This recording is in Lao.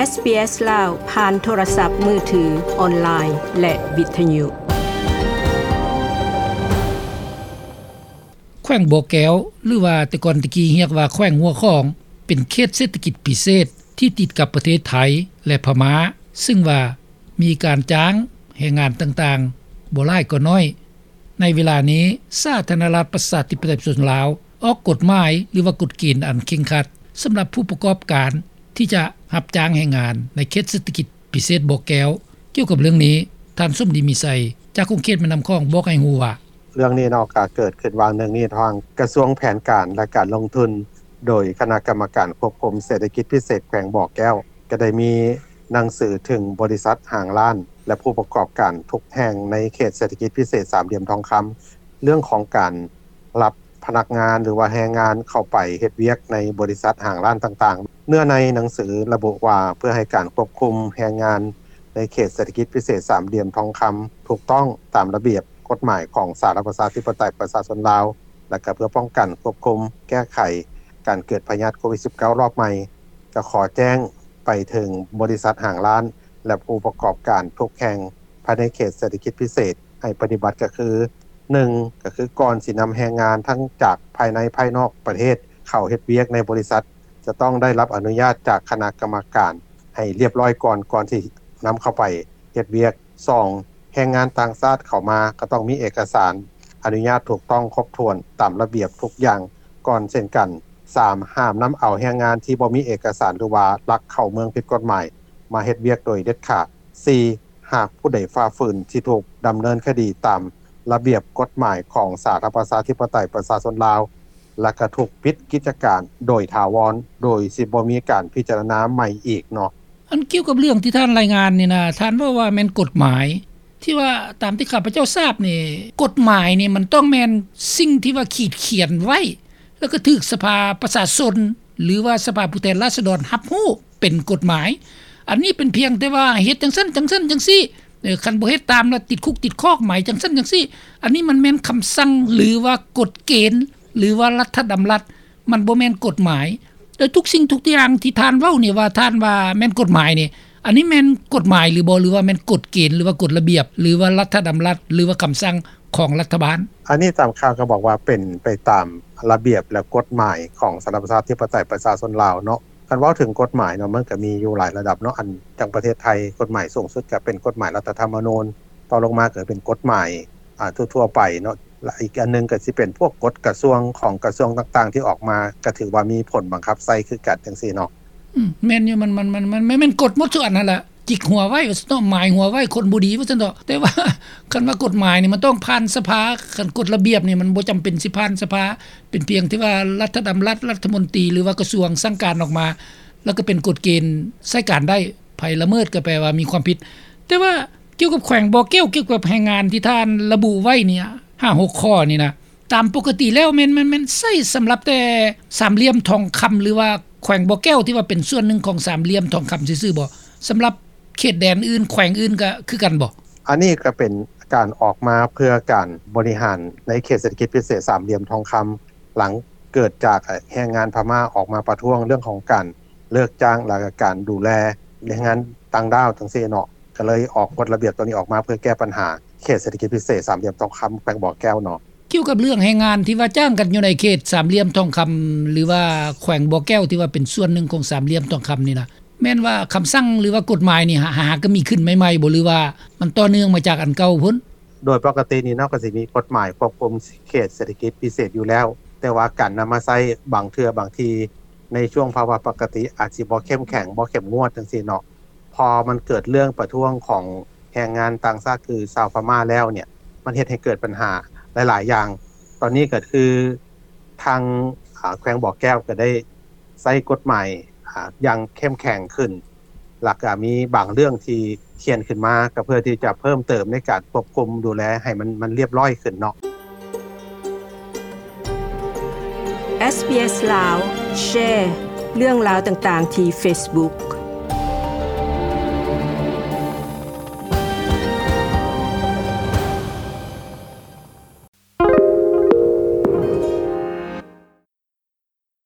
ເອສບີເອສ ລາວ ຜ່ານໂທລະສັບມືຖື, ອອນລາຍ ແລະ ວິທະຍຸ. ແຂວງບໍ່ແກ້ວ ຫຼືວ່າແຕ່ກ່ອນແຕ່ກີ້ຮຽກວ່າແຂວງຫົວຂອງ ເປັນເຂດເສດຖະກິດພິເສດທີ່ຕິດກັບປະເທດໄທ ແລະ ພະມ້າ, ຊຶ່ງວ່າມີການຈ້າງແຮງງານຕ່າງໆ ບໍ່ຫຼາຍກໍໜ້ອຍ. ໃນເວລານີ້ ສາທາລະນະລັດ ປະຊາທິປະໄຕ ປະຊາຊົນລາວ ອອກກົດໝາຍ ຫຼືວ່າກົດເກນອັນເຄັ່ງຄັດ ສຳລັບຜູ້ປະກອບການທີ່ຈະຮັບຈ້າງແຮງງານໃນເຂດເສດຖະກິດພິເສດບໍ່ແກ້ວ. ກ່ຽວກັບເລື່ອງນີ້ ທ່ານ ສົມດີ ມີໄຊ ຈາກຂົງເຂດແມ່ນ້ຳຂອງ ບອກໃຫ້ຮູ້ວ່າ: ເລື່ອງນີ້ເນາະ ກະເກີດຂຶ້ນວ່າງໜຶ່ງນີ້ ທາງກະຊວງແຜນການ ແລະ ການລົງທຶນ ໂດຍຄະນະກຳມະການຄວບຄຸມເສດຖະກິດພິເສດແຂວງບໍ່ແກ້ວ ກະໄດ້ມີໜັງສືເຖິງບໍລິສັດຫ້າງຮ້ານ ແລະ ຜູ້ປະກອບການທຸກແຫ່ງໃນເຂດເສດຖະກິດພິເສດສາມຫຼ່ຽມທອງຄຳ ເລື່ອງຂອງການຮັບພະນັກງານ ຫຼືວ່າແຮງງານເຂົ້າໄປເຮັດວຽກໃນບໍລິສັດຫ້າງຮ້ານຕ່າງໆ. ເນື້ອໃນໜັງສືລະບຸວ່າ ເພື່ອໃຫ້ການຄວບຄຸມແຮງງານໃນເຂດເສດຖະກິດພິເສດສາມຫຼ່ຽມທອງຄຳ ຖືກຕ້ອງຕາມລະບຽບ ກົດໝາຍຂອງສາທາລະນະລັດ ປະຊາທິປະໄຕ ປະຊາຊົນລາວ ແລະ ກະເພື່ອປ້ອງກັນ, ຄວບຄຸມ, ແກ້ໄຂການເກີດພະຍາດໂຄວິດສິບເກົ້າ ລອບໃໝ່, ກະຂໍແຈ້ງໄປເຖິງບໍລິສັດຫ້າງຮ້ານ ແລະ ຜູ້ປະກອບການທຸກແຫ່ງພາຍໃນເຂດເສດຖະກິດພິເສດ ໃຫ້ປະຕິບັດ ກະຄື ໜຶ່ງ ກະຄື ກ່ອນຊິນຳແຮງງານທັງຈາກພາຍໃນພາຍນອກປະເທດ ເຂົ້າເຮັດວຽກໃນບໍລິສັດ ຈະຕ້ອງໄດ້ຮັບອະນຸຍາດຈາກຄະນະກຳມະການໃຫ້ລຽບລ້ອຍກ່ອນ ກ່ອນຊິນຳເຂົ້າໄປເຮັດວຽກ. ສອງ ແຮງງານຕ່າງຊາດເຂົ້າມາ ກະຕ້ອງມີເອກະສານອະນຸຍາດຖືກຕ້ອງຄົບຖ້ວນຕາມລະບຽບທຸກຢ່າງ ກ່ອນເຊັ່ນກັນ. ສາມ ຫ້າມນຳເອົາແຮງງານທີ່ບໍ່ມີເອກະສານ ຫຼືວ່າລັກເຂົ້າເມືອງຜິດກົດໝາຍ ມາເຮັດວຽກໂດຍເດັດຂາດ. ສີ່ ຫາກຜູ້ໃດຝ່າຝືນ ຊິຖືກດຳເນີນຄະດີຕາມລະບຽບກົດໝາຍຂອງສາທາລະນະລັດ ປະຊາທິປະໄຕ ປະຊາຊົນລາວ ແລະ ກະຖືກປິດກິດຈະການໂດຍຖາວອນ ໂດຍຊິບໍ່ມີການພິຈາລະນາໃໝ່ອີກເນາະ. ອັນກ່ຽວກັບເລື່ອງທີ່ທ່ານລາຍງານນີ້ນະ ທ່ານເວົ້າວ່າແມ່ນກົດໝາຍ ທີ່ວ່າຕາມທີ່ຂ້າພະເຈົ້າຊາບນີ້ ກົດໝາຍນີ້ມັນຕ້ອງແມ່ນສິ່ງທີ່ວ່າຂີດຂຽນໄວ້ ແລ້ວກໍຖືກສະພາປະຊາຊົນ ຫຼືວ່າສະພາຜູ້ແທນລາຊະດອນຮັບຮູ້ເປັນກົດໝາຍ. ອັນນີ້ເປັນພຽງແຕ່ວ່າເຮັດຈັ່ງຊັ້ນຈັ່ງຊັ້ນຈັ່ງຊີ້ ເອີ ຄັນບໍ່ເຮັດຕາມລະຕິດຄຸກຕິດຄອກ ໝາຍຈັ່ງຊັ້ນຈັ່ງຊີ້. ອັນນີ້ມັນແມ່ນຄຳສັ່ງ ຫຼືວ່າກົດເກນ ຫຼືວ່າລັດຖະດຳລັດ ມັນບໍ່ແມ່ນກົດໝາຍ. ແຕ່ທຸກສິ່ງທຸກຢ່າງທີ່ທ່ານເວົ້ານີ້ ວ່າທ່ານວ່າແມ່ນກົດໝາຍນີ້ ອັນນີ້ແມ່ນກົດໝາຍຫຼືບໍ່ ຫຼືວ່າແມ່ນກົດເກນ ຫຼືວ່າກົດລະບຽບ ຫຼືວ່າລັດຖະດຳລັດ ຫຼືວ່າຄຳສັ່ງຂອງລັດຖະບານ? ອັນນີ້ຕາມຂ່າວກໍບອກວ່າເປັນໄປຕາມລະບຽບ ແລະ ກົດໝາຍຂອງສາທາລະນະລັດ ປະຊາທິປະໄຕ ປະຊາຊົນລາວເນາະ. ຄັນເວົ້າເຖິງກົດໝາຍເນາະ ມັນກໍມີຢູ່ຫຼາຍລະດັບເນາະ. ອັນ ຈັ່ງປະເທດໄທ ກົດໝາຍສູງສຸດກໍເປັນກົດໝາຍລັດຖະທຳມະນູນ, ຕໍ່ລົງມາກໍເປັນກົດໝາຍ ອ່າ ທົ່ວໆໄປເນາະ. ແລະ ອີກອັນໜຶ່ງກໍຊິເປັນພວກກົດກະຊວງຂອງກະຊວງຕ່າງໆທີ່ອອກມາ ກໍຖືວ່າມີຜົນບັງຄັບໃຊ້ຄືກັນ ຈັ່ງຊີ້ເນາະ. ອືມ ແມ່ນຢູ່ ມັນ ມັນ ມັນ ມັນ ມັນແມ່ນກົດໝົດທຸກອັນຫັ້ນລະ. ຈິກຫົວໄວ້ວ່າຊັ້ນເນາະ, ໝາຍຫົວໄວ້ຄົນບໍ່ດີວ່າຊັ້ນເນາະ. ແຕ່ວ່າຄັນວ່າກົດໝາຍນີ້ມັນຕ້ອງຜ່ານສະພາ, ຄັນກົດລະບຽບນີ້ມັນບໍ່ຈຳເປັນຊິຜ່ານສະພາ, ເປັນພຽງແຕ່ວ່າລັດຖະດຳລັດ, ລັດຖະມົນຕີ ຫຼືວ່າກະຊວງສັ່ງການອອກມາ ແລ້ວກໍເປັນກົດເກນໃຊ້ການໄດ້, ໃຜລະເມີດກໍແປວ່າມີຄວາມຜິດ. ແຕ່ວ່າກ່ຽວກັບແຂວງບໍ່ແກ້ວ, ກ່ຽວກັບແຮງງານທີ່ທ່ານລະບຸໄວ້ນີ້ ຫ້າຫົກຂໍ້ນີ້ນະ, ຕາມປົກກະຕິແລ້ວແມ່ນ ແມ່ນ ແມ່ນໃຊ້ສຳລັບແຕ່ສາມຫຼ່ຽມທອງຄຳ ຫຼືວ່າແຂວງບໍ່ແກ້ວທີ່ວ່າເປັນສ່ວນໜຶ່ງຂອງສາມຫຼ່ຽມທອງຄຳຊື່ໆບໍ? ສຳລັບເຂດແດນອື່ນ ແຂວງອື່ນກໍຄືກັນບໍ? ອັນນີ້ກໍເປັນການອອກມາເພື່ອການບໍລິຫານໃນເຂດເສດຖະກິດພິເສດສາມຫຼ່ຽມທອງຄຳ ຫຼັງເກີດຈາກແຮງງານພະມ້າອອກມາປະທ້ວງເລື່ອງຂອງການເລີກຈ້າງ ແລະ ການດູແລແຮງງານຕ່າງດ້າວຈັ່ງຊີ້ເນາະ, ກໍເລີຍອອກກົດລະບຽບຕົວນີ້ອອກມາເພື່ອແກ້ບັນຫາເຂດເສດຖະກິດພິເສດສາມຫຼ່ຽມທອງຄຳ ແຂວງບໍ່ແກ້ວເນາະ. ກ່ຽວກັບເລື່ອງແຮງງານທີ່ວ່າຈ້າງກັນຢູ່ໃນເຂດສາມຫຼ່ຽມທອງຄຳ ຫຼືວ່າແຂວງບໍ່ແກ້ວທີ່ວ່າເປັນສ່ວນໜຶ່ງຂອງສາມຫຼ່ຽມທອງຄຳນີ້ນະ, ແມ່ນວ່າຄຳສັ່ງ ຫຼືວ່າກົດໝາຍນີ້ຫາ ຫາກໍມີຂຶ້ນໃໝ່ໆບໍ ຫຼືວ່າມັນຕໍ່ເນື່ອງມາຈາກອັນເກົ່າພຸ້ນ? ໂດຍປົກກະຕິນີ້ເນາະ ກໍຊິມີກົດໝາຍຄວບຄຸມເຂດເສດຖະກິດພິເສດຢູ່ແລ້ວ, ແຕ່ວ່າການນຳມາໃຊ້ບາງເທື່ອບາງທີໃນຊ່ວງພາວະປົກກະຕິອາດຊິບໍ່ເຂັ້ມແຂງ ບໍ່ເຂັ້ມງວດຈັ່ງຊີ້ເນາະ. ພໍມັນເກີດເລື່ອງປະທ້ວງຂອງແຮງງານຕ່າງຊາດ ຄືຊາວພະມ້າແລ້ວເນ່ຍ ມັນເຮັດໃຫ້ເກີດບັນຫາຫຼາຍໆຢ່າງ. ຕອນນີ້ກໍຄືທາງ ອາ ແຂວງບໍ່ແກ້ວກໍໄດ້ໃຊ້ກົດໝາຍ ອາ ຢ່າງເຂັ້ມແຂງຂຶ້ນ, ແລ້ວກໍມີບາງເລື່ອງທີ່ຂຽນຂຶ້ນມາ ກໍເພື່ອທີ່ຈະເພີ່ມເຕີມໃນການຄວບຄຸມດູແລໃຫ້ມັນ ມັນລຽບລ້ອຍຂຶ້ນເນາະ. ເອສບີເອສ ລາວ ແຊເລື່ອງລາວຕ່າງໆທີ່ເຟສບຸກ.